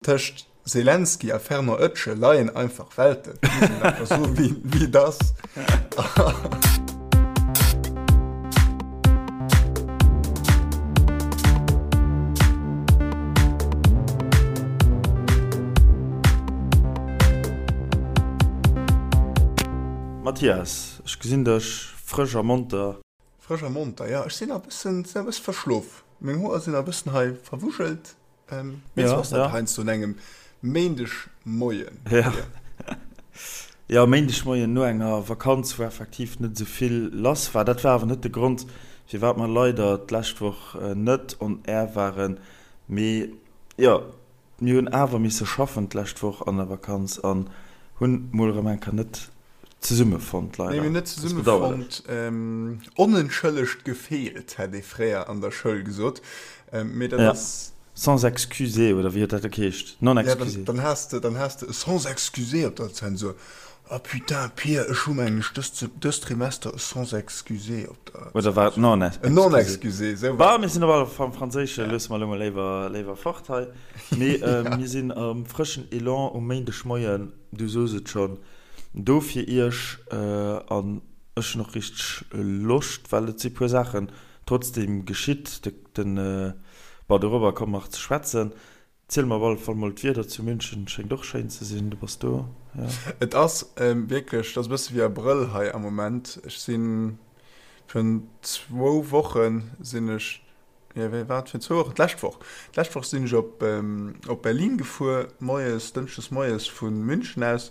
Tëscht Zelensky a Fernand Oetschel leien einfach Welten, muss een einfach soen, wéi, wéi et ass. Mathias, ech gesinn dech frësch a monter. Frësch a monter, jo. Ech sinn e bëssen, sinn e bësse verschlof. Meng Hoer sinn e bëssen hei verwuschelt. Mee sou ass dat heiansdo un engem Méindegmoien. Ja, jo, Méindegmoien no enger Vakanz, wou effektiv net esou vill lass war. Dat war awer net de Grond, firwat mer leider d'lescht Woch net on air waren. Mee jo, mir hunn awer misse schaffen d'lescht Woch an der Vakanz an hunn mol erëm eng Kéier net zesummefonnt, leider. Nee, mir hunn net zesummefonnt. Onentschëllegt gefeelt, hätt ee fréier an der Schoul gesot. Mee dat ass. Sans excusé, oder wéi huet dat geheescht? Non excusé. Ja, dann has de, dann has de e sans excusé op der Zensur. Ah putain, Pir, ech hu mengen ech dëst, dëst Trimester e sans excusé op der. Oder war et non excusé? En non excusé, esou war et. Bon, mir sinn op alle Fall am Franséische, loosse mer elo mol léiwer, léiwer fort hei. Mee mir sinn am frëschen Elan um Méindegmoien, du sos et schonn. Do fir iech an ech hunn och richteg Loscht, well et si puer Saachen trotzdem geschitt. Den, bon dorobber komme mer nach ze schwätzen. Ziel mer op alle Fall mol, d'Wieder zu München schéngt och schéin ze sinn, du bass do, jo? Et ass wierklech, et ass e bësse wéi Abrëll hei am Moment. Ech sinn virun zwou Woche sinn ech Jo, wéi war et fir zwou Wochen? D'lescht Woch. D'lescht Woch sinn ech op, op Berlin gefuer, moies, dënschdes moies vu München aus.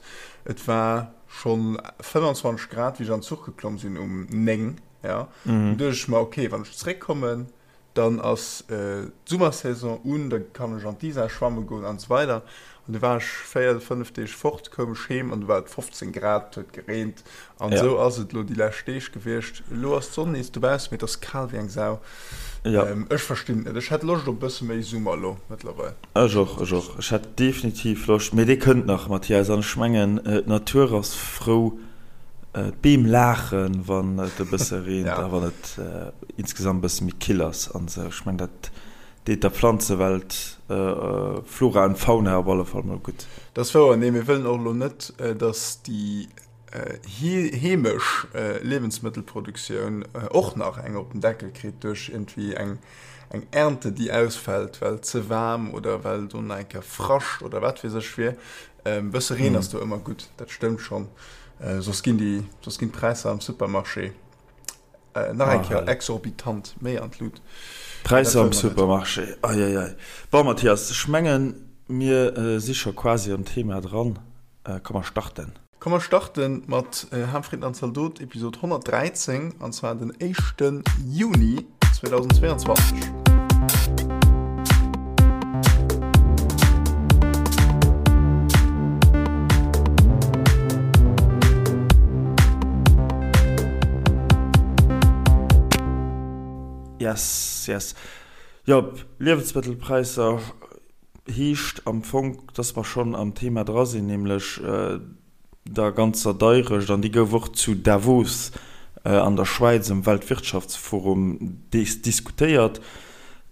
Et war schonn 25 Grad, wéi ech an den Zuch geklomm sinn um 9, ja. Dunn duecht ech mer, okay, wann ech zeréckkommen, dann ass d'Summersaison un, da kann ech an d'Isar schwamme goen an esou weider. An du war ech 4, 5 Deeg fort, koum ech heem an du war et 15 Grad, et huet gereent. An esou ass et elo déi lescht Deeg gewiescht. Elo ass d'Sonn nees dobaussen, mee et ass kal wéi eng Sau. Ech verstinn et net. Ech hätt Loscht op e bësse méi Summer elo mëttlerweil. Ech och, ech och. Ech hätt definitiv Loscht, mee dee kënnt nach, Mathias. An ech mengen, d'Natur ass frou, d'Beem laachen, wann et e bësse reent a wann et insgesamt e bësse méi kill ass an esou. Ech mengen, dat deet der Pflanzewelt, Flora an Fauna op alle Fall mol gutt. Dat ass wouer. Nee, mir wëllen och elo net, dass déi heemesch Liewensmëttelproduktioun och nach eng op den Deckel kritt duerch iergendwéi eng Ernte, déi ausfält, well ze waarm oder well do nach eng Kéier Frascht oder wat weess ech wier. E bësse Reen ass do ëmmer gutt, dat stëmmt schonn. Soss ginn déi, soss ginn d'Präisser am Supermarché nach eng Kéier exorbitant méi an d'Lut. D'Präisser am Supermarché, eieiei. Bon, Mathias, ech mengen, mir si scho quasi am Thema dran. Komm mer starten. Komm mer starten mat Ham, Fritten an Zaldot, Episod 113, an zwar den éischte Juni 2022. Yes, yes. Jo, Liewensmëttelpräisser Heescht am Fong, dass mer schonn am Thema dra sinn, nämlech der ganzer Deirecht. An déi gouf och zu Davos an der Schwäiz um Weltwirtschaftsforum diskutéiert.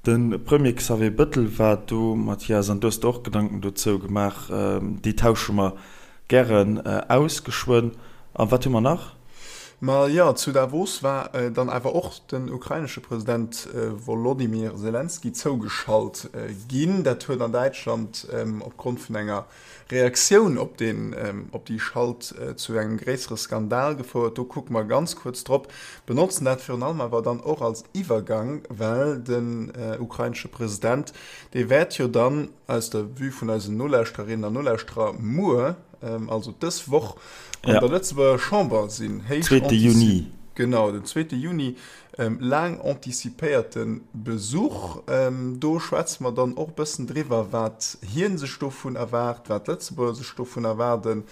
De Premier Xavier Bettel war do, Mathias, an du hues der och Gedanken dozou gemaach. Déi tausche mer gären aus geschwënn. A wat hu mer nach? Ma jo, zu Davos war dann awer och den ukrainesche President Wolodymyr Selenskyj zougeschalt ginn. Dat huet an Däitschland opgrond vun enger Reaktioun op deen, op déi Schalt zu engem gréissere Skandal gefouert. Do kucke mer ganz kuerz drop, benotzen dat virun allem awer dann och als Iwwergang, well den ukrainesche President, dee wäert jo dann aus der Vue vun eisen Nolauschtererinnen an Nolauschterer muer, also dës Woch an der Lëtzebuerger Chamber sinn. Héich Zweete Juni. Genau, den zweete Juni. Laang anticipéierte Besuch. Do schwätze mer dann och e bëssen driwwer, wat hie sech dovun erwaart, wat d'Lëtzebuerger sech dovun erwaarden,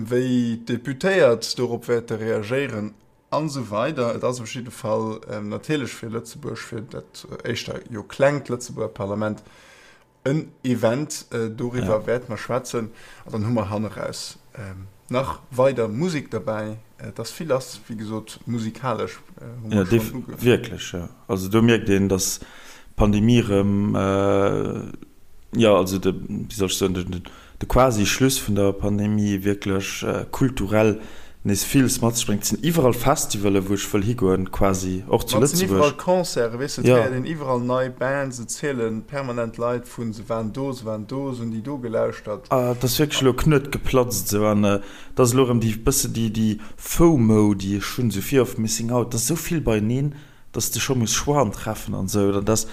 wéi d'Deputéiert dorop wäerte reagéieren an esou weider. Et ass op jidde Fall natierlech fir Lëtzebuerg, fir dat éischter jo klengt Lëtzebuerger Parlament, En Event, doriwwer wäerte mer schwätzen. An dann hu mer hanneraus nach weider Musek derbäi. Et ass vill lass, wéi gesot, musikalesch hu mer schonn uge. Wierklech, jo. Also do mierkt een, datt d'Pandemie erëm. Jo, also de, wéi soll ech soen, de, de quasi Schluss vun der Pandemie wierklech kulturell nees villes mat sech bréngt. Et sinn iwwerall Festivalen, wou ech wëll higoen, quasi, och zu Ma et sinn iwwerall Lëtzebuerg. Concerten, weess de, et Jo. héiert een iwwerall nei Bands, et ziele permanent Leit vun, se waren do, se waren do, se hunn déi do gelauschtert. Et ass wierklech elo e Knuet geplatzt esou an et ass elo erëm déi bësse déi, déi FOMO, déi ech hunn, esou Fear of Missing Out, et ass esou vill beieneen. dass de scho muss Choixen treffen an esou, dat ass,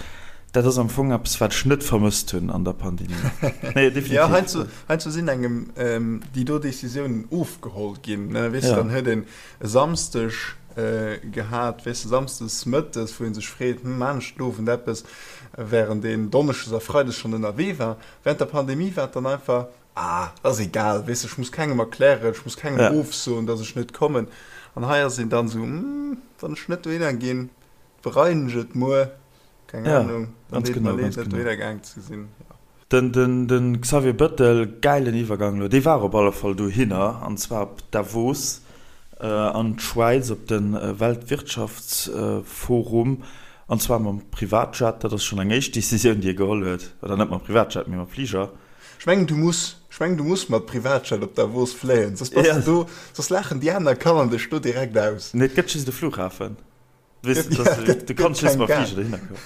dat ass am Fong eppes, wat ech net vermësst hunn an der Pandemie. Nee, definitiv. Jo, heiansdo, heiansdo sinn engem déi do Decisiounen ofgeholl ginn, ne, weess de, dann huet een e Samsdeg gehat, weess de, samsdes mëttes, wou ee sech freet, hm, maan ech den Owend eppes, während een donneschdes a freides schonn ënnerwee war. Während der Pandemie war et dann einfach, Ah, ass egal, weess ech muss kengem erklären, ech muss kengem ja. ofsoen, dass ech net kommen. An hei ass een dann sou, hm, wann ech net dohinner ginn, bereien ech et muer, keng ja, Ahnung, dann deet mer leed, net dohinner gaang ze sinn. Ja. Den, den, den Xavier Bettel, gäilen Iwwergang elo, dee war op alle Fall dohinner, an zwar op Davos äh, an d'Schwäiz op de Weltwirtschaftsforum, an zwar mam Privatjet, dat ass schonn eng éischt Decisioun, déi e geholl huet, oder net mam Privatjet, mee mam Fliger. Ech mengen du muss, ech mengen du muss mat Privatjet op Davos fléien, soss bass de do, soss laachen déi aner Kanner dech do direkt aus. Nee, et gëtt just e Flughafen. Weess de, dass du, du kanns just mam Fliger dohinner kommen.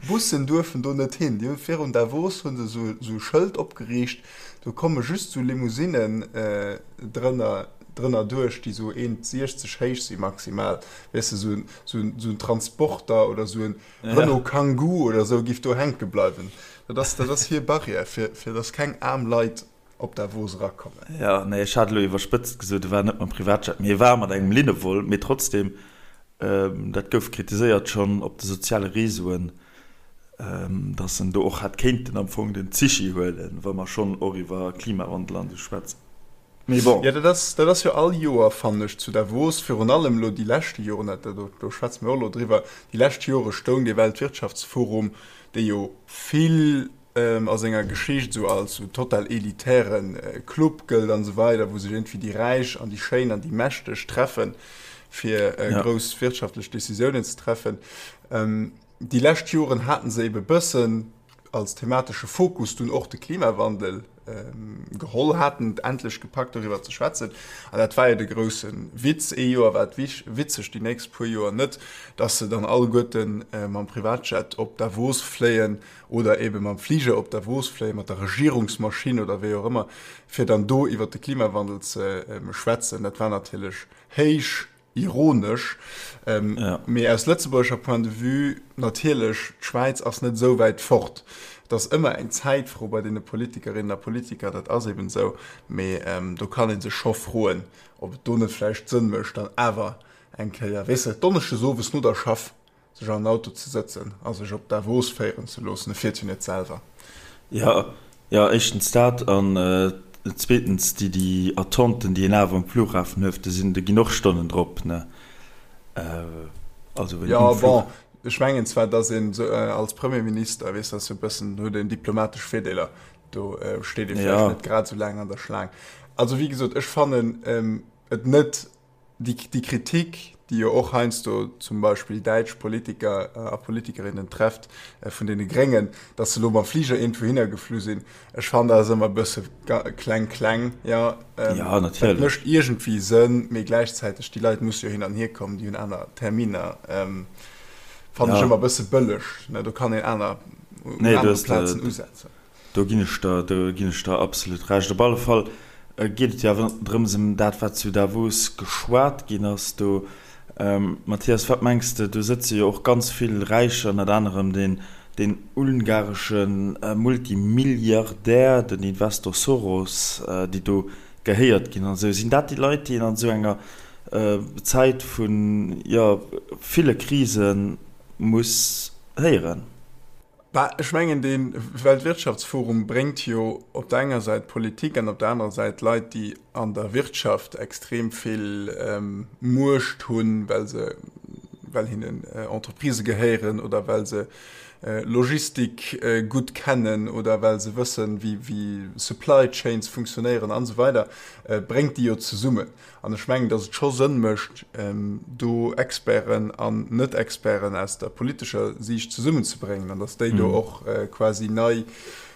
Bussen duerfen do net hin. Déi hu virun Davos hu se sou sou e Schëld opgeriicht, do komme just sou Limousinnen drënner drënner duerch, déi sou 1,60 héich si maximal. Weess de, sou sou sou en Transporter oder sou en Renault Kangoo oder sou giff do hänke bleiwen. Dat ass, dat ass hir Barrière, fir, fir dass keng aarm Leit op Davos erakommen. Jo, nee, ech hat elo iwwerspëtzt gesot, e war net mam Privatjet, mee e war mat engem Linnevol. Mee trotzdem, dat gouf kritiséiert schonn op de soziale Reseauen, dass en do och hätt kéinten am Fong den Zichi huelen, wa mer schonn och iwwer Klimawandel an esou schwätzen. Mee bon. Jo, dat ass, dat ass jo all Joer, fannen ech, zu Davos, virun allem elo déi leschte Joren, dat, do, do schwätze mir och elo driwwer, déi lescht Jore stoung dee Weltwirtschaftsforum, dee jo vill a senger Geschicht esou als esou total elitäre Club gëllt an esou weider, wou sech iergendwéi déi Räich an déi Schéin an déi Mächteg treffen, fir grouss wirtschaftlech Decisiounen ze treffen. Déi lescht Joren haten se ebe bëssen als thematesche Fokus dunn och de Klimawandel geholl haten, et endlech gepackt doriwwer ze schwätzen. An dat war jo de grousse Witz. Ee Joer war et witzeg, déi nächst puer Joer net, dass se dann alleguerte mam Privatjet op Davos fléien oder ebe mam Fliger op Davos fléien, mat der Regierungsmaschinn oder wéi och ëmmer, fir dann do iwwer de Klimawandel ze schwätzen. Dat war natierlech héich Ironesch, mee aus lëtzebuergescher Point de vue natierlech, d'Schwäiz ass net esou wäit fort. Et ass ëmmer eng Zäitfro bei deene Politikerinnen a Politiker, dat ass eben esou, mee do kann ee sech scho froen, ob et do net vläicht Sënn mécht, dann awer eng Kéier, weess de, donneschdes owes no der Schaff sech an en Auto ze sëtzen a sech op Davos féieren ze loossen. E fiert jo net selwer. Jo, jo, éischtens dat an zweetens déi, déi Attenten, déi een awer um Flughafen huet, do sinn, do ginn och Stonnen drop, ne? Also wéi um Flug. Jo, bon, ech mengen zwar, datt een esou als Premierminister, weess, ass jo e bëssen, huet een diplomatesch Virdeeler, do steet ee vläicht net grad esou laang an der Schlaang. Also wéi gesot, ech fannen et net Déi Kritik, déi jo och heiansdo zum Beispill däitsch Politiker a Politikerinnen trefft vun deene Gréngen, datt se elo mam Fliger iergendwouhinner geflu sinn, ech fannen, dat ass ëmmer e bësse kleng kleng. Jo, dat mécht iergendwéi Sënn, mee gläichzäiteg, déi Leit musse jo hin an hier kommen, déi hunn aner Terminer, fannen ech ëmmer e bësse bëlleg. Do kann een aner, un anere Plazen usetzen. Do ginn ech der, do ginn ech der absolut Recht. Op alle Fall geet et jo awer drëms ëm dat, wat zu Davos geschwat ginn ass do. Mathias, wat mengs de, do sëtze jo och ganz vill Räicher, ënnert anerem deen, deen ungaresche Multimilliardär, den Investor Soros, déi do gehéiert ginn an esou. Sinn dat déi Leit, déi een an esou enger Zäit vun, jo, ville Krise muss héieren? Bah, ech mengen, dee Weltwirtschaftsforum bréngt jo op der enger Säit Politik an op der anerer Säit Leit, déi an der Wirtschaft extrem vill Muecht hunn, well se, well hinnen Entreprisë gehéieren oder well se. Logistik gutt kennen oder well se wëssen, wéi Supply Chains funktionéieren an esou weider, bréngt déi jo zesummen. An ech mengen, datt et scho Sënn mécht, do Experten an Net-Experten aus der politescher Siicht zesummenzebréngen an datt déi do och quasi nei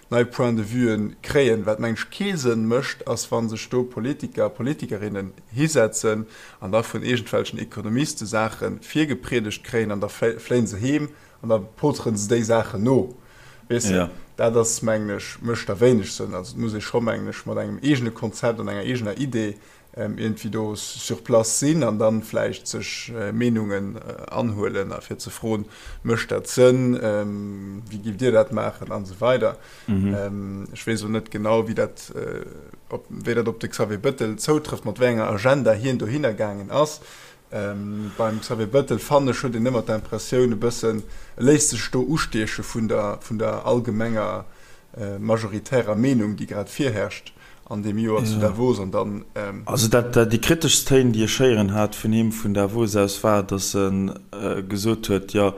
nei Points de vuen kréien. Wat, mengen ech, kee Sënn mécht, ass, wa sech do Politiker a Politikerinnen hisetzen an da vun iergendwelchen Ekonomiste Saache virgepriedegt kréien an da fléien se heem an da poteren se déi Saachen no. Weess de, dat ass, mengen ech, mécht da wéineg Sënn. Also et muss ee scho, mengen ech, mat engem eegene Konzept an enger eegener Idee iergendwéi do sur place sinn an dann vläicht sech Meenungen anhuelen a fir ze froen, mécht dat Sënn, wéi giff Dir dat maachen an esou weider. Ech weess elo net genau, wéi dat op wéi dat op de Xavier Bettel zoutrëfft, mat wéi enger Agenda hien dohinner gaangen ass. Beim Xavier Bettel fannen ech, huet een ëmmer d'Impressioun e bëssen, e léisst sech do ustieche vun der vun der allgemenger majoritärer Meenung, déi grad virherrscht. an deem Joer zu Davos an dann. Also dat, déi kriteschst Téin, déi ech héieren hat vun him vun Davos aus, war, datt e gesot huet, jo,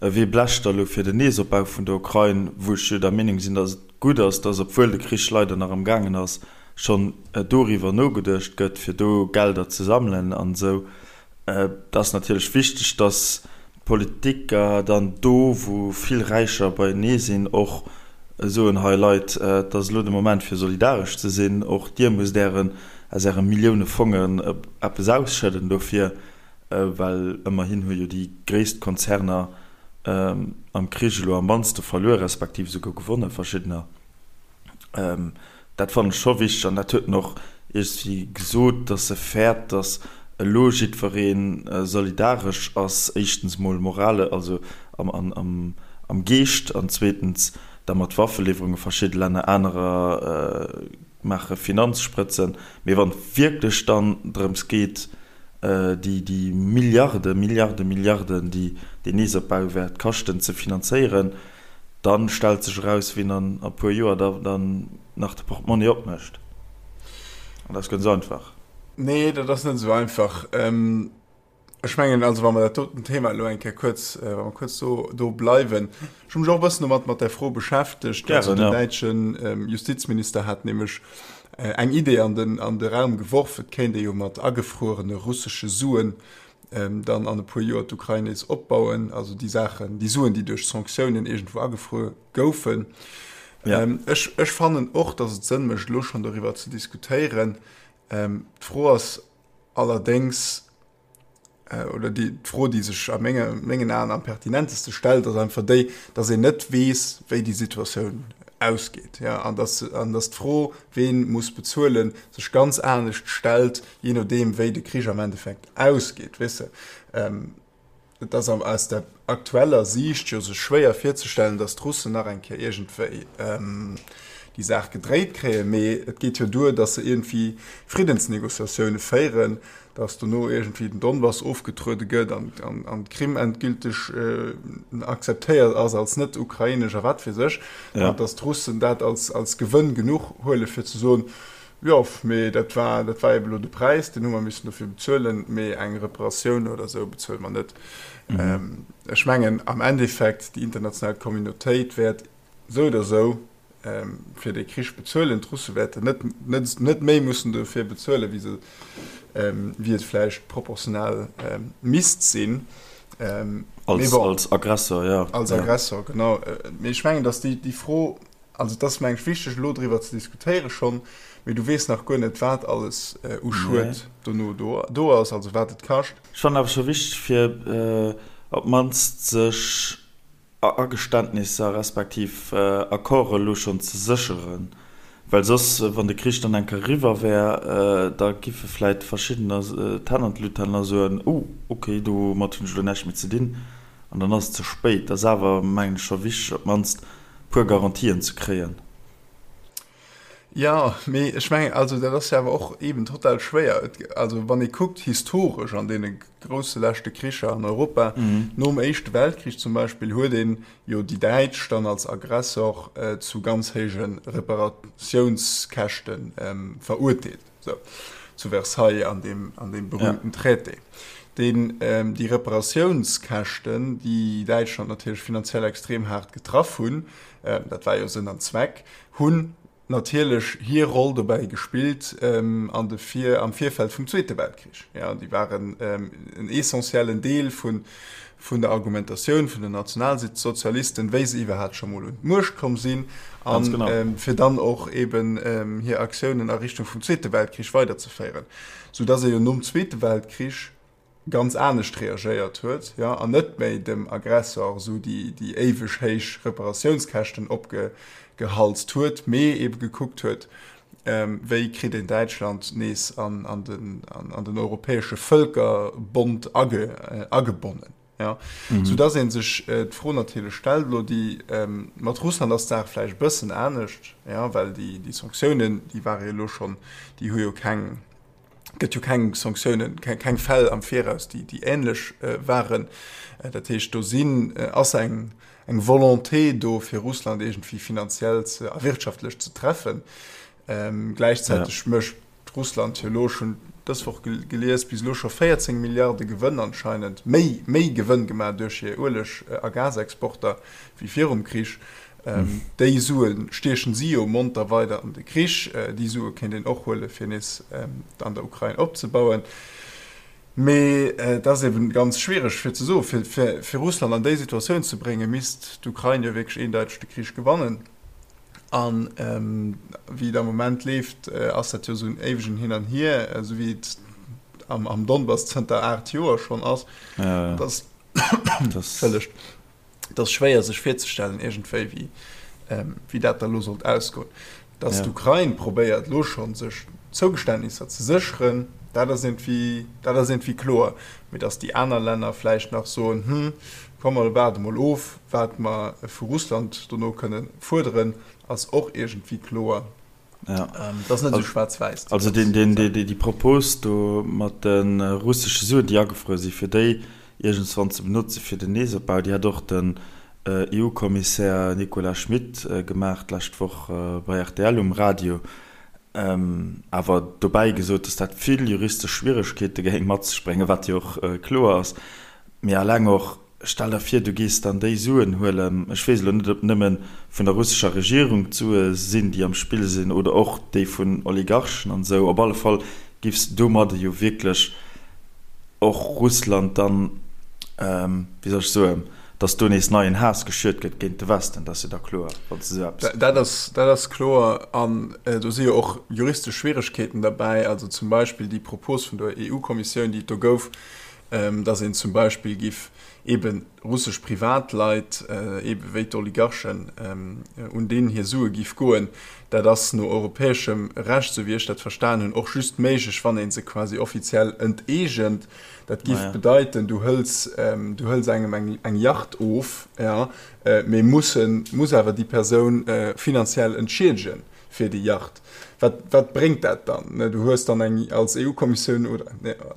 wee blecht da lo fir den Neesopbau vun der Ukrain, wou ech jo der Meenung sinn, datt et gutt ass, datt, obwuel de Krich leider nach am gaangen ass, schonn doriwwer nogeduecht gëtt, fir do Gelder ze sammelen an esou. Et ass natierlech wichteg, datt d'Politiker dann do, wou vill Räicher beienee sinn, och soen, Hei Leit, et ass elo de Moment fir solidaresch ze sinn, och dir musst ären, aus äre Millioune Fongen eppes ausschëdden dofir, well ëmmerhin hu jo déi gréisst Konzerner am Krich elo am mannste verluer, respektiv esouguer gewonnen, verschiddener. Dat fannen ech scho wichteg an dat huet en och iergendwéi gesot, datt e fäert, datt elo jiddweree solidaresch ass, éischtens mol morale, also am Geescht an zweetens da mat Waffeliwwerunge verschidde Länner, anerer maache Finanzsprëtzen. Mee wann et wierklech dann drëms geet, déi Milliarde, Milliarde, Milliarden, déi deen Neesopbau wäert kaschten, ze finanzéieren, Dann stellt sech eraus, wien an e puer Joer da dann nach de Portmonni opmécht. An dat ass guer net esou einfach. Nee, dat ass net esou einfach. Ech mengen also, wa mer dat doten Thema elo eng Kéier kuerz, wa mer kuerz do, do bleiwen, ech hu mech och e bëssen domat, mat där Fro beschäftegt. Also den däitsche Justizminister hat nämlech eng Idee an den, an de Raum geworf, et kéint ee jo mat agefruerene russesche Suen dann an e puer Joer d'Ukrain nees opbauen, also déi Saachen, déi Suen, déi duerch Sanktiounen iergendwou agefruer goufen. Ja. Ech, ech fannen och, datt et Sënn mécht, elo schonn doriwwer ze diskutéieren. D'Fro ass allerdéngs, oder déi, d'Fro, déi sech a menge, mengen Aen am pertinenteste stellt, ass einfach déi, datt een net weess, wéi déi Situatioun ausgeet, ja, an datt, an datt d'Fro, ween muss bezuelen, sech ganz anescht stellt, jee nodeem wéi de Krich am Endeffekt ausgeet, weess de. Et ass aus der aktueller Siicht jo sech schwéier virzestellen, datt d'Russen nach eng Kéier iergendwéi déi Saach gedréit kréien, mee et geet jo duer, datt se iergendwéi Friddensnegociatioune féieren, datt dono iergendwéi den Donbass ofgetruede gëtt an d'Krim endgülteg akzeptéiert ass als net ukrainesch a wat weess ech, an datt d'Russen dat als Gewënn genuch huele fir ze soen, Jo, mee dat war, dat war eben elo de Präis, deen hu mer missen dofir bezuelen, mee eng Reparatioun oder esou bezuele mer net. Ech mengen am Endeffekt, déi international Communautéit wäert esou oder esou fir dee Krich bezuelen. D'Russe wäerten net, net, net méi mussen dofir bezuelen, wéi se, wéi et vläicht proportional misst sinn. Als, als Aggressor, jo. Als Aggressor, genau. Mee ech mengen, datt déi, déi Fro, Also et ass mengen ech wichteg elo driwwer ze diskutéiere schonn, mee du weess nach guer net wat alles u Schued dono do ass, also wat et kascht. Ech fannen awer scho wichteg fir op d'mannst sech Ageständnisser respektiv Accorde elo schonn ze sécheren, well soss wann de Krich dann eng Kéier eriwwer wär, da giffe vläit verschiddener d'Hänn an d'Lut halen a soen, oh ok domat hunn ech elo näischt méi ze dinn an dann ass et ze spéit. Et ass awer mengen ech scho wichteg op d'mannst puer Garantien ze kréien. Jo, mee ech mengen, also dat ass jo awer och eeben total schwéier. Et, also wann ee kuckt historesch an deene grousse leschte Kricher an Europa, nom Éischte Weltkrich zum Beispill, huet een jo déi Däitsch dann als Aggressor zu ganz héije Reparatiounskäschte verurteelt, sou zu Versailles an deem, an deem berühmten Traité. Deen, déi Reparatiounskäschten, déi Däitschland natierlech finanziell extrem haart getraff hunn, dat war jo Sënn an Zweck, hunn natierlech hir Roll dobäi gespillt an de Vir, am Virfeld vum Zweete Weltkrich. Jo, déi waren en essentiellen Deel vun, vun der Argumentatioun vun den Nationalsozialisten, wéi se iwwerhaapt scho mol un d'Muecht komm sinn, a fir dann och eben hir Aktiounen a Richtung vum Zweete Weltkrich weiderzeféieren, soudass ee jo nom Zweete Weltkrich ganz anescht reagéiert huet, jo, an net méi dem Aggressor esou déi éiweg héich Reparatiounskäschten opgehalst huet, mee ebe gekuckt huet, wéi kritt een Däitschland nees an den europäesche Vëlkerbond agebonnen. Soudass ee sech d'Fro natierlech stellt, elo déi mat Russland ass d'Saach vläicht e bëssen anescht, well déi Sanktiounen, déi ware jo elo schonn, déi hu jo keng, gëtt jo keng Sanktiounen, keng Fäll am Viraus, déi änlech waren. Dat heescht, do sinn, ass eng eng Volonté do, fir Russland iergendwéi finanziell ze a wirtschaftlech ze treffen. Gläichzäiteg mécht Russland jo elo, ech hunn dës Woch gelies, bis elo scho 14 Milliarde Gewënn anscheinend, méi, méi Gewënn gemaach duerch hir Ueleg a Gasexporter wéi virum Krich. Déi Sue stiechen si jo monter weider an de Krich. Déi Sue kéint een och huele fir nees an der Ukrain opzebauen. Mee et ass eben ganz schwiereg fir ze soen, fir fir Russland an déi Situatioun ze bréngen, misst d'Ukrain jo wierklech eendeiteg de Krich gewannen. An wéi et am Moment leeft, ass dat jo esou en éiwegen Hin an Hier, esou wéi et am am Donbass zënter 8 Joer schonn ass. Dat ass, Entschëllegt. Et ass schwéier sech virzestellen iergendwéi wéi wéi dat da lo sollt ausgoen. Datt d'Ukrain probéiert lo schonn sech Zougeständnisser ze sécheren, dat ass iergendwéi dat ass iergendwéi kloer. Mee datt déi aner Länner vläicht nach soen, hm, komm mer waarde mol of wat mer vu Russland dono kënne fuerderen, ass och iergendwéi kloer. Ja. Ähm, dat ass net esou schwaarz-wäiss. Also den, den, déi, déi Propos do mat de russesche Suen, déi agefruer sinn, fir déi iergendswann ze benotze fir den Neesopbau, déi hat och den EU-Kommissär Nicolas Schmit gemaach d'lescht Woch bei rtl um Radio. Awer dobäi gesot, datt dat vill juristesch Schwieregkeete géing mat sech bréngen, wat jo och kloer ass. Mee alleng och, Stell der vir, du gees dann déi Suen huelen, ech weess elo net, ob nëmme vun der russescher Regierung d'Sue sinn, déi am Spill sinn, oder och déi vun Oligarchen an esou. Op alle Fall giffs de domadde jo wierklech och Russland dann, wéi soll ech soen, datt do nees neien Haass geschürt gëtt géint de Westen, dat ass jo da kloer, wann s de esou eppes. Dat ass, dat ass kloer. An do si jo och juristesch Schwieregkeeten derbäi, also zum Beispill déi Propos vun der EU-Kommissioun, déi et do gouf, dass een zum Beispill giff eebe russesch Privatleit, eebe wéi d'Oligarchen, un deenen hir Sue giff goen. Dat ass no europäeschem Recht, esou wéi ech dat verstan hunn, och just méiglech, wann ee se quasi offiziell enteegent. Dat giff bedeiten, du hëls, du hëls engem eng, eng Yacht of, jo, mee mussen, muss awer déi Persoun finanziell entschiedegen. fir déi Yacht. Wat, wat bréngt dat dann? Du hues dann eng, als EU-Kommissioun oder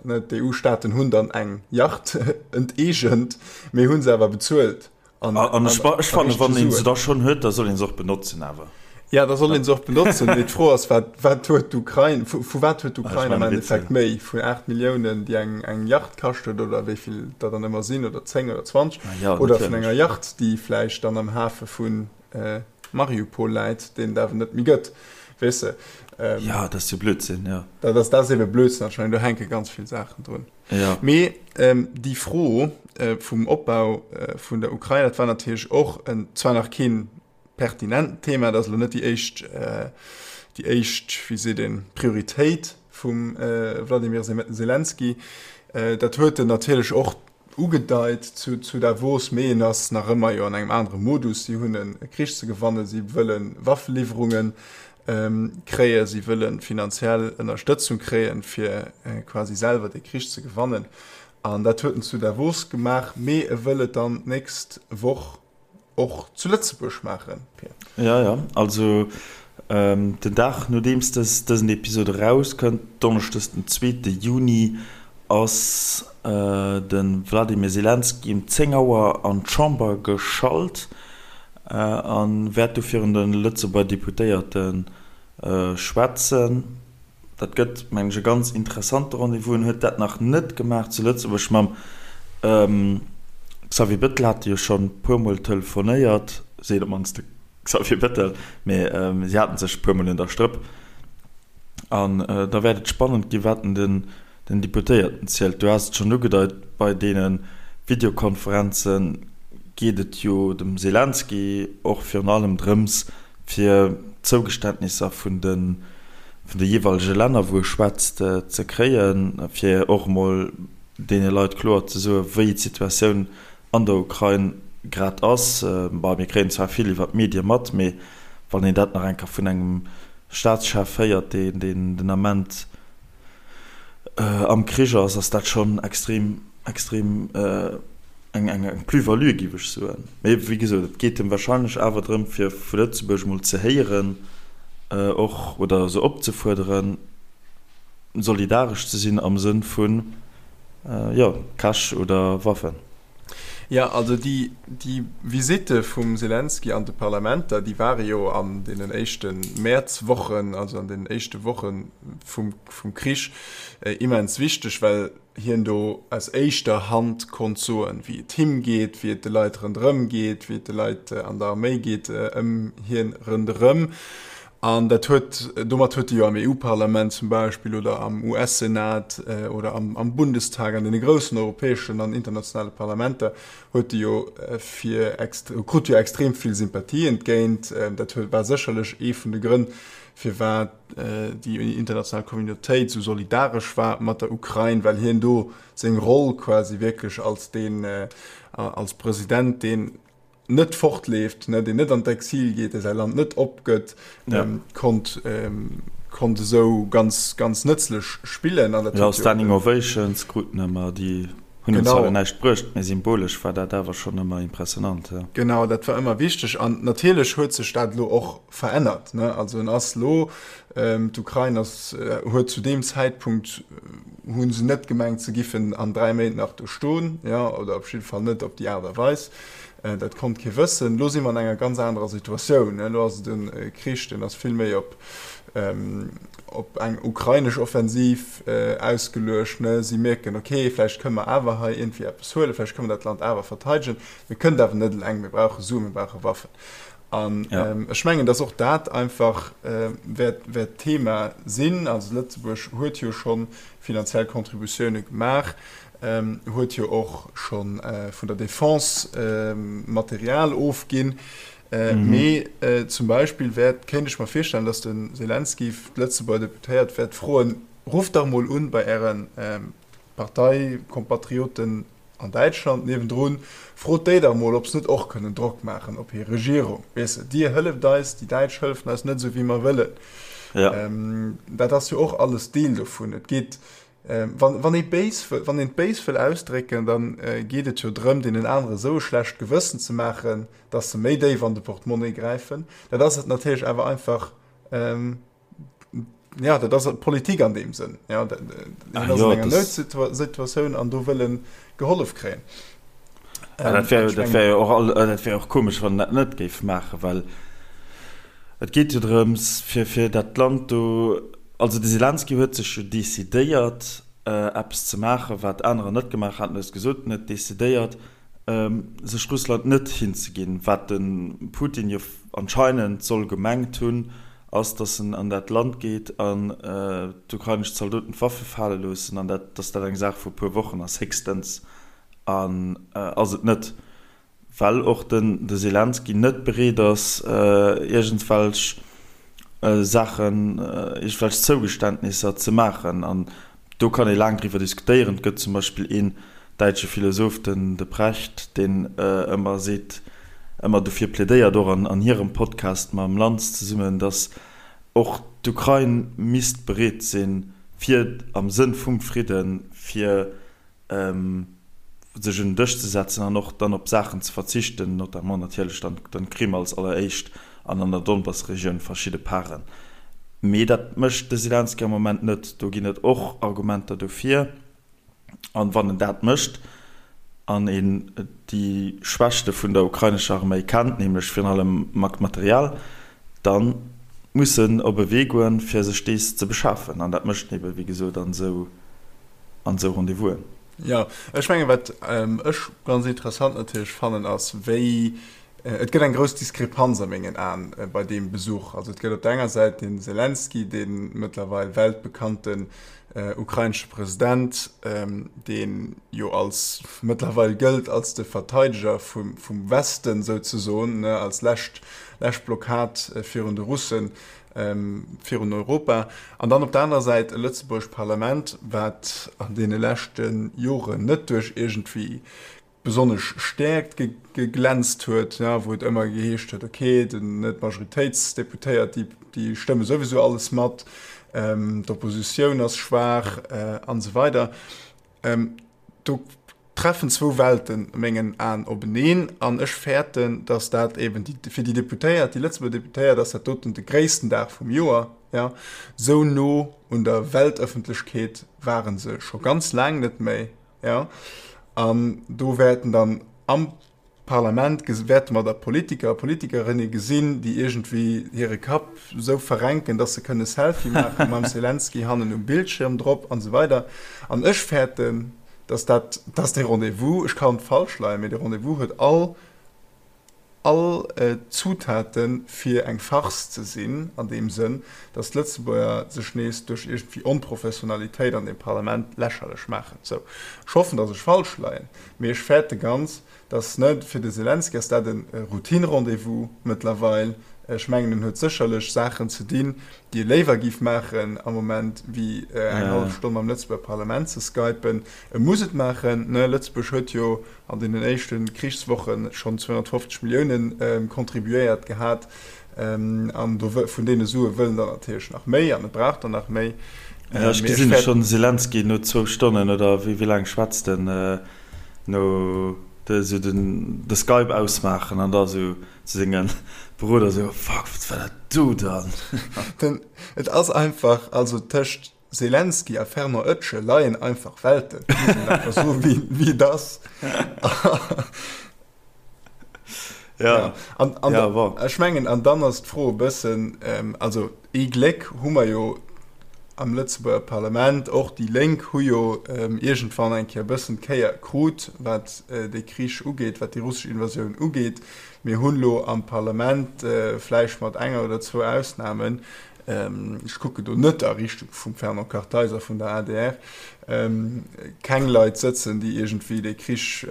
ne, d'EU-Staaten hunn dann eng Yacht enteegent, mee hu se awer bezuelt an, an, ech, ech fannen, wann een se da schonn huet, da soll een se och benotzen awer. Ja, da soll een se och benotzen. Mee d'Fro ass, wat, wat huet d'Ukrain, vu, vu wat huet d'Ukrain am Endeffekt méi? Vun 8 Milliounen, déi eng, eng Yacht kascht huet, oder wéi vill der dann ëmmer sinn, oder 10 oder 20, ja, oder vun enger Yacht, déi vläicht dann am Hafe vun Mariupol läit, deen et awer net méi gëtt, weess de. Jo, dat ass jo Blödsinn, jo. Dat ass, dat ass ebe Blödsinn anscheinend, do hänke ganz vill Saachen drun. Jo. Mee déi Fro vum Opbau vun der Ukrain, dat war natierlech och en, zwar nach keen pertinent Thema, dat ass elo net déi éischt, déi éischt, wéi seet een, Prioritéit vum Wladimir Selenskyj. Dat huet en natierlech och Ugedeit zu zu Davos, mee en ass nach ëmmer jo an engem anere Modus. Si hunn e Krich ze gewannen, si wëlle Waffeliwwerunge kréien, si wëlle finanziell Ënnerstëtzung kréien, fir quasi selwer dee Krich ze gewannen. An dat huet en zu Davos gemaach, mee e wëll et dann d'nächst Woch och zu Lëtzebuerg maachen, Pir. Jo, jo, also den Dag nodeems dësen Episod erauskënnt, Donneschdes den zweete Juni, ass de Wladimir Selenskyj um 10 Auer an d'Chamber geschalt a wäert do virun de Lëtzebuerger Deputéierte schwätzen. Dat gëtt, mengen ech, e ganz interessante Rendez-vous. En huet dat nach net gemaach zu Lëtzebuerg. Mam Xavier Bettel hat e jo schonn e puermol telefonéiert, seet op d'mannst de Xavier Bettel, mee si hate sech e puermol un der Strëpp. An da wäert et spannend ginn, wat en den Deputéierten zielt. Du has et schonn ugedeit, bei deene Videokonferenze geet et jo dem Selenskyj och virun allem drëms, fir Zougeständnisser vun de vun de jeeweilege Länner, wou e schwätzt, ze kréien, fir och emol deene Leit kloer ze soen, wéi d'Situatioun an der Ukrain grad ass. Bon, mir kréien zwar vill iwwer d'Medie mat, mee wann een dat nach eng Kéier vun engem Staatschef héiert, deen den Ament am Krich ass, ass dat schonn extrem, extrem eng Plus-value, géif ech soen. Mee wéi gesot, et geet em warscheinlech awer drëm, fir vu Lëtzebuerg emol ze héieren och, oder se opzefuerderen, solidaresch ze sinn am Sënn vun, jo, Cash oder Waffen. Jo, also déi, déi Visitte vum Selenskyj an de Parlamenter, déi ware jo an deenen éischte Mäerzwochen, also an deenen éischte Woche vum, vum Krich immens wichteg, well hien do aus éischter Hand konnt soen, wéi et him geet, wéi et de Leit ronderëm geet, wéi et de Leit an der Arméi geet ëm hien ronderëm. An dat huet, domat huet e jo am EU-Parlament zum Beispill oder am US-Senat oder am Bundestag, an deene groussen europäeschen an internationale Parlamenter, huet e jo fir, krut jo extrem vill Sympathie entgéint. Dat huet, war sécherlech ee vun de Grënn, firwat déi international Communautéit esou solidaresch war mat der Ukrain, well hien do seng Roll quasi wierklech als deen, als President, deen net fortleeft, ne, deen net an d'Exil geet, dee säi Land net opgëtt, ja. ähm, konnt, ähm, konnt esou ganz, ganz nëtzlech spillen. An dat ja, Standing Ovations kruten ëmmer, déi hunn genau. zwar näischt bruecht, mee symbolesch war dat awer schonn ëmmer impressionant. Ja. Genau, dat war ëmmer wichteg. An natierlech huet sech dat lo och verännert. Ne? Also en ass lo, ähm, d'Ukrain ass, äh, huet zu deem Zäitpunkt äh, hunn se net gemengt, se giffen an 3 Méint nach do stoen, ja, oder op jidde Fall net op déi Aart a Weis. Dat konnt kee wëssen. Elo si mer an enger ganz anerer Situatioun. Elo ass et e Krich, deen ass vill méi op op eng ukrainesch Offensiv ausgeluecht. Si mierken, okay, vläicht kënne mer awer hei iergendwéi eppes huelen, vläicht kënne mer dat Land awer verteidegen. Mir kënnen et awer net eleng, mir brauche Suen, mir brauche Waffen. An ech mengen, datt och dat einfach wäert wäert Thema sinn. Also Lëtzebuerg huet jo scho finanziell Contributioune gemaach. Huet jo och scho vun der Defense Material ofginn. Mee zum Beispill wäert, kéint ech mer virstellen, datt de Selenskyj d'Lëtzebuerger Deputéiert wäert froen, Rufft dach mol un bei Äre Parteikompatrioten an Däitschland niewendrun, frot déi dach mol, ob se net och kënnen Drock maachen op hir Regierung. Weess de, Dir hëlleft eis, déi Däitsch hëllefen eis net esou wéi mer wëllen. Dat ass jo och alles Deel dovun. Et geet Wann, wann ee béis, wann een et béis wëll ausdrécken, da geet et jo drëm, deenen anere esou e schlecht Gewëssen ze maachen, dass se méi déif an de Portemonnaie gräifen. Dat ass et natierlech awer einfach, jo, dat ass Politik an deem Sënn. Jo, dat, een ass an enger Noutsituatioun an do wëll e gehollef kréien. Dat wär, dat wär jo och all, dat wär och komesch, wann en dat net géif maachen, well et geet jo drëms, fir, fir dat Land do, Also de Selenskyj huet sech jo decidéiert eppes ze maachen, wat anerer net gemaach haten. Du hues gesot, en huet decidéiert, sech Russland net hinzeginn. Wat de Putin jo anscheinend soll gemengt hunn, ass, datt en an dat Land geet an d'ukrainesch Zaldoten d'Waffe fale loossen an dat, datt dat eng Saach vu puer Wochen ass, héchstens. An ass et net. Well och den de Selenskyj net bereet ass, iergendwelch Saachen, iergendwelch Zougeständnisser ze maachen. An do kann ee laang driwwer diskutéieren. Et gëtt zum Beispill een däitsche Philosoph, den de Precht, deen ëmmer seet, ëmmer dofir plädéiert, och an hirem Podcast mam Lanz zesummen, datt och d'Ukrain misst bereet sinn, fir am Sënn vum Fridden, fir sech un den Dësch ze setzen an och dann op Saachen ze verzichten, notamment natierlech dann d'Krim als alleréischt an an der Donbass-Regioun verschidde Paren. Mee dat mécht de Selenskyj am Moment net. Do ginn et och Argumenter dofir. An wann en dat mécht an een déi Schwächte vun der ukrainescher Arméi kennt, nämlech virun allem Material, da. mussen op e Wee goen, fir sech dees ze beschafen. An dat mécht en ebe wéi gesot an esou an esou Rendez-vousen. Jo, ech mengen, wat ech ganz interessant natierlech fannen, ass, wéi, et gëtt eng grouss Diskrepanz a mengen Aen bei deem Besuch. Also et gëtt op der enger Säit de Selenskyj, dee mëttlerweil weltbekannten ukrainesche President, dee jo als mëttlerweil gëllt als de Verteideger vum Westen souzesoen, als lescht lescht Blockad virun de Russen, virun Europa. An dann op der anerer Säit e lëtzebuergescht Parlament, wat an deene leschte Joren net duerch iergendwéi besonnesch Stäerkt geglänzt huet, wou et ëmmer geheescht huet, okay, den Net-Majoritéitsdeputéiert, déi stëmme souwisou alles mat, d'Oppositioun ass schwaach an esou weider. Do treffen zwou Welten a mengen Aen openeen an ech fäerten, datt dat eben déi, fir déi Deputéiert, déi Lëtzebuerger Deputéiert ass dat doten de gréissten Dag vum Joer, jo. Esou no un der Weltëffentlechkeet ware se scho ganz laang net méi, jo. An do wäerten dann am Parlament wäerte mer da Politiker a Politikerinne gesinn, déi iergendwéi hire Kapp esou verrenken, dass se kënne Selfie maache mam Selenskyj hannen um Bildschirm drop an esou weider. An ech fäerten, dass dat, dass dee Rendez-vous, ech kann falsch leien, mee dee Rendez-vous huet all, all d'Zutaten, fir eng Farce ze sinn, an deem Sënn, dass d'Lëtzebuerger sech nees duerch iergendwéi Onprofessionalitéit an deem Parlament lächerlech maachen. Sou, ech hoffen, dass ech falsch leien. Mee ech fäerte ganz, dass, ne, fir de Selenskyj ass dat e Routine-Rendez-vous mëttlerweil. Ech mengen, en huet sécherlech Saachen ze dinn, déi e léiwer géif maachen am Moment, wéi eng hallef Stonn mam Lëtzebuerger Parlament ze skypen. E muss et maachen, ne. Lëtzebuerg huet jo an deenen éischte Krichswoche schonn 250 Milliounen contribuéiert gehat. An do vun deene Sue wëll en der natierlech nach méi an e brauch der nach méi. Jo, ech gesinn schonn de Selenskyj no zwou Stonnen oder wéi laang schwätzt en, no esou de Skype ausmaachen an da esou zu senge Beroder esou, Fuck, wat war dat do dann? Den, et ass einfach, also tëscht Selenskyj a Fernand Oetschel leien einfach Welten, muss een einfach soen, wéi et ass. Ja, an, an ja, bon. Ech mengen, an dann ass d'Fro e bëssen, ähm, also ee Gléck hu mer jo am Lëtzebuerger Parlament, och déi Lénk hu jo ähm, iergendwann eng Kéier e bëssen d'Kéier krut, wat äh, dee Krich ugeet, wat déi russesch Invasioun ugeet. Mir hunn elo am Parlament, äh, vläicht mat enger oder zwou Ausnahmen, ech kucken do net a Richtung vum Fernand Kartheiser vun der adr, keng Leit sëtzen, déi iergendwéi dee Krich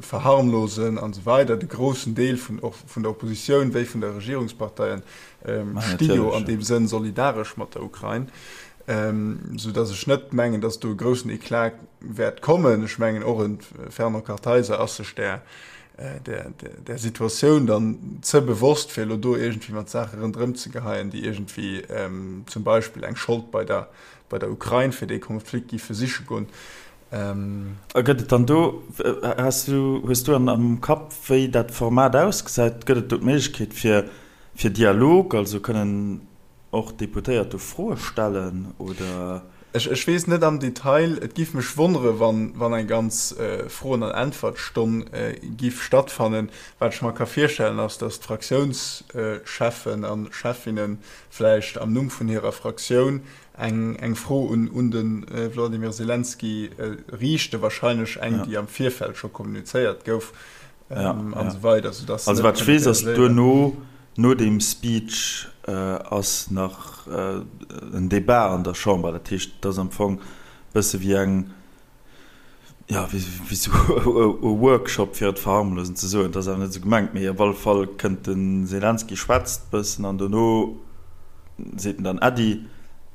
verharmlosen an esou weider. De groussen Deel vun och vun der Oppositioun wéi vun der Regierungsparteien sti jo an deem Sënn solidaresch mat der Ukrain, soudatt ech net mengen, datt do e groussen Eclat wäert kommen. Ech mengen och e Fernand Kartheiser ass sech där där, där Situatioun dann ze bewosst, fir elo do iergendwéi mat Saache ronderëm ze geheien, déi iergendwéi zum Beispill eng Schold bei der, bei der Ukrain fir dee Konflikt géife siche goen. A gëtt et dann do, has du, hues du am Kapp, wéi dat Format ausgesäit? Gëtt et do d'Méiglechkeet fir, fir Dialog, also kënnen Och d'Deputéiert do Froe stellen, oder? Ech weess net am Detail. Et giff mech wonnere wann eng ganz Froen an Äntwertstonn giff stattfannen. Wat ech mer ka virstellen ass, datt d'Fraktiounscheffen a Cheffinne vläicht am Numm vun hirer Fraktioun eng Fro un de Wladimir Selenskyj riichten, wahrscheinlech eng déi am Virfeld scho kommunizéiert gouf. An esou weider, soudass se net. Also wat ech weess ass, duerno, no deem Speech ass nach en Debat an der Chamber. Dat heescht, et ass am Fong e bësse wéi eng, jo, wéi esou e Workshop, fir et verharmlosend ze soen. Et ass awer net esou gemengt, mee op alle Fall kënnt de Selenskyj, schwätzt e bëssen an dono seet en dann Äddi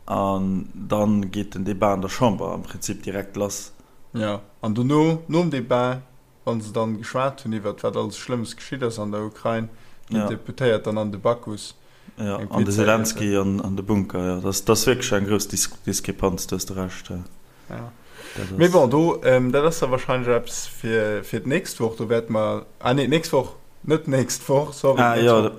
an da geet den Debat an der Chamber am Prinzip direkt lass. Jo, an dono, nom Debat, Wann se dann geschwat hunn iwwert wat alles Schlëmmes geschitt ass an der Ukrain, ginn d'Deputéiert dann an de Bacchus eng Pizza iessen. An de Selenskyj an de Bunker, jo. Dat ass wierklech eng grouss Diskrepanz, do hues de Recht. Jo. Mee bon, do, dat ass da wahrscheinlech eppes fir fir d'nächst Woch. Do wäerte mer, ah nee, d'nächst Woch, net d'nächst Woch, sorry, Ah jo,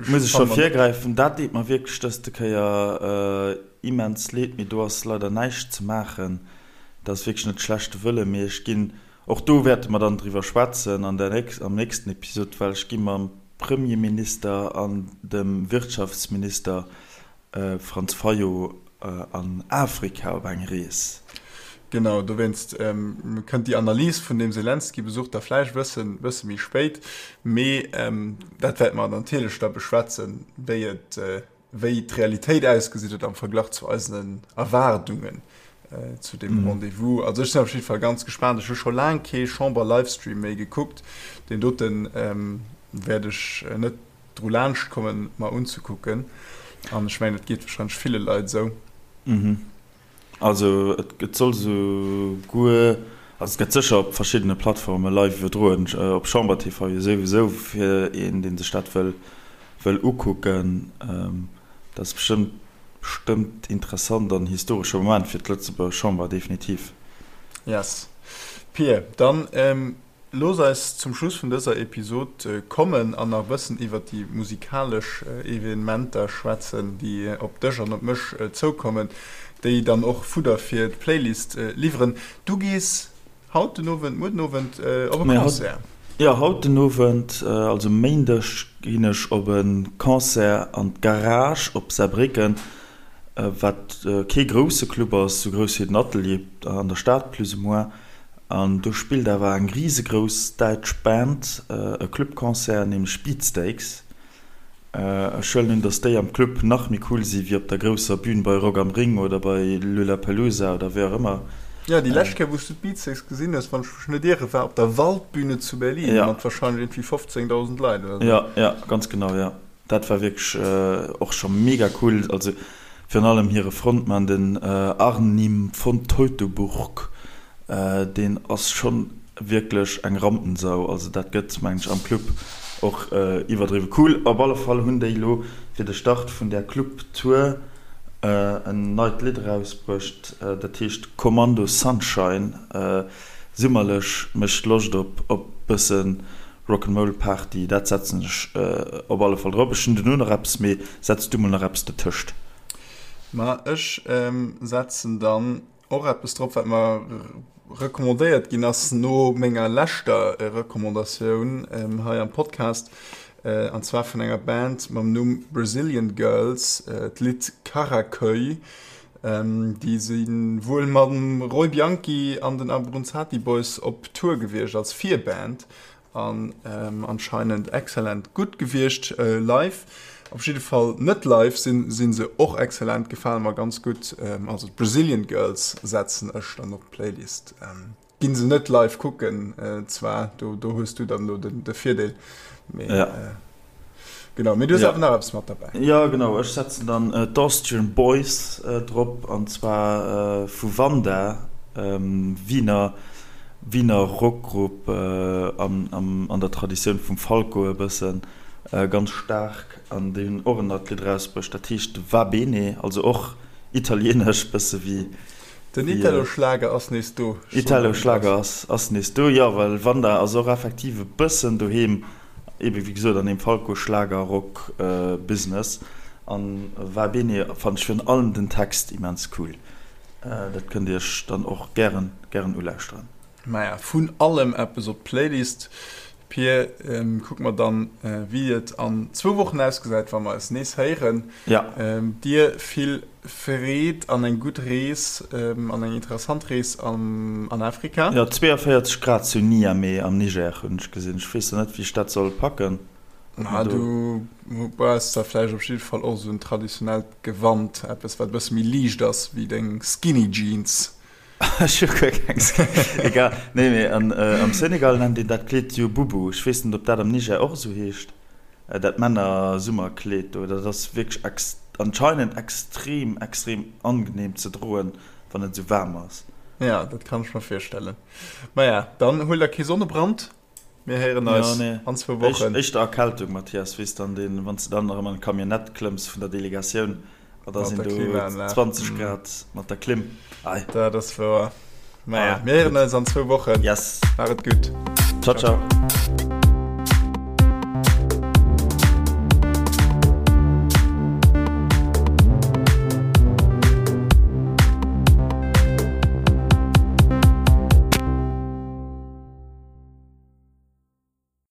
muss ech scho virgräifen, dat deet mer wierklech dëste Kéier immens leed, mee do ass leider näischt ze maachen. Dat ass wierklech net schlechte Wëlle, mee ech ginn, och do wäerte mer dann driwwer schwätzen an der, am nächsten Episod, well ech gi mam. Premierminister an dem Wirtschaftsminister Franz Fayot an Afrika op eng Rees. Genau, dowéinst kënnt déi Analys vun deem Selenskyj-Besuch da vläicht e bëssen, bësse méi spéit. Mee dat wäerte mer natierlech da beschwätzen, wéi et, wéi d'Realitéit ausgesinn huet am Verglach zu eisen Erwaardungen zu deem Rendez-vous. Also ech sinn op jidde Fall ganz gespaant. Ech hu scho laang kee Chamber-Livestream méi gekuckt. Deen dote wäert ech net dru laanscht kommen mer unzekucken an ech mengen et geet wahrscheinlech ville Leit esou. Mhm. Also et soll sou guer, also et gëtt sécher op verschiddene Plattforme live iwwerdroen, op Chamber TV jo souwisou fir een deen sech dat wëll wëll ukucken. Dat ass bestëmmt bestëmmt interessant an historesche Moment fir d'Lëtzebuerger Chamber definitiv. Yes Pir, dann Looss eis zum Schluss vun dëser Episod kommen an nach e bëssen iwwert déi musikalesch Evenementer schwätzen, déi op dech an op mech zoukommen, déi dann och Fudder fir d'Playlist liwweren. Du gees haut den Owend, muer den Owend op e Concert. Jo, haut den Owend, also Méindeg, ginn ech op e Concert an d'Garage op Saarbrécken, wat kee grousse Club ass, sou grouss wéi den Atelier an der Stad plus ou moins. An do spillt awer eng risegrouss däitsch Band e Clubconcert, nämlech Beatsteaks. Ech huelen un, dass déi am Club nach méi cool si wéi op der grousser Bühn bei Rock am Ring oder bei Lollapalooza oder wéi och ëmmer. Jo, déi lescht Kéier, wou s du d'Beatsteaks gesinn hues, wann ech mech net ieren, war op der Waldbühne zu Berlin mat warscheinlech iergendwéi 15.000 Leit oder sou. Jo, jo, ganz genau, jo. Dat war wierklech och scho mega cool. Also virun allem hire Frontmann, den Arnim von Teutoburg, deen ass schonn wierklech eng Rampensau. Also dat gëtt, mengen ech, am Club och iwwerdriwwe cool. Op alle Fall hunn déi elo fir de Start vun där Club-Tour en neit Lidd erausbruecht, dat heescht Kommando Sunshine. Summerlech, mécht Loscht op op bëssen Rock'n'Roll Party, dat setzen ech op alle Fall drop. Ech hunn duerno nach eppes, mee setz du mol nach eppes dertëscht. Ma ech setzen dann och eppes drop, wat mer recommandéiert ginn ass no menger leschter Recommandatioun hei am Podcast, an zwar vun enger Band mam Numm Brazilian Girls, d'Lidd Karaköy. Déi si wuel mam Roy Bianchi an den Abruzzati Boys op Tour gewiescht als Virband an anscheinend excellent gutt gewiescht live. Op jidde Fall net live sinn si se och excellent, gefale mer ganz gutt. Also d'Brazilian Girls setzen ech dann op d'Playlist. Ginn se net live kucken zwar, do do hues du dann elo den de Virdeel, mee ja. Genau, mee du hues awer nach eppes mat derbäi. Jo genau, ech setzen dann d'Austrian Boys drop an zwar vu Wanda, Wiener Wiener Rockgrupp an an der Traditioun vum Falco e bëssen, ganz staark an déi hunn och en neit Lidd erausbruecht, dat heescht Va Bene, also och italieenesch bësse wéi Den Italo-Schlager ass nees do. Italo-Schlager ass nees do, jo, well Wanda ass och effektiv e bëssen doheem, ebe wéi gesot an deem Falco-Schlager-Rock-Business. An Va Bene fannen ech virun allem den Text immens cool. Dat kënnt Dir iech dann och gären, gären ulauschteren. Maja, vun allem eppes op d'Playlist. Pir, kucke mer dann, wéi et an zwou Wochen ausgesäit, wa mer eis nees héieren. Dir vill Freed an eng gutt Rees an eng interessant Rees an Afrika. Jo, 42 Grad zu Niamey am Niger hunn ech gesinn. Ech weess nach net, wéi ech dat soll packen. Ma du brauchs da vläicht op jidde Fall och esou en traditionellt Gewand, eppes, wat e bësse méi liicht ass wéi deng Skinny Jeans. Ech hu guer keng Egal. Nee, mee an, am Senegal nennt een dat Kleed jo Boubou. Ech weess net, ob dat am Niger och esou heescht, dat Männer-Summerkleed do. Dat ass wierklech ex, anscheinend extrem, extrem angenehm ze droen, wann et esou waarm ass. Ja, dat kann ech mer virstellen. Maja, dann huel der kee Sonnebrand. Mir héieren eis an zwou Wochen. Éischter Erkältung, Mathias, weess dann deen, wann s de dann erëm an d'Camionnette klëmms vun der Delegatioun, a da sinn do 20 Grad mat der Klimm. Ei. Dat ass wouer. Maja, mir héieren eis an zwou Wochen. Yes. Maach et gutt. Ciao, ciao.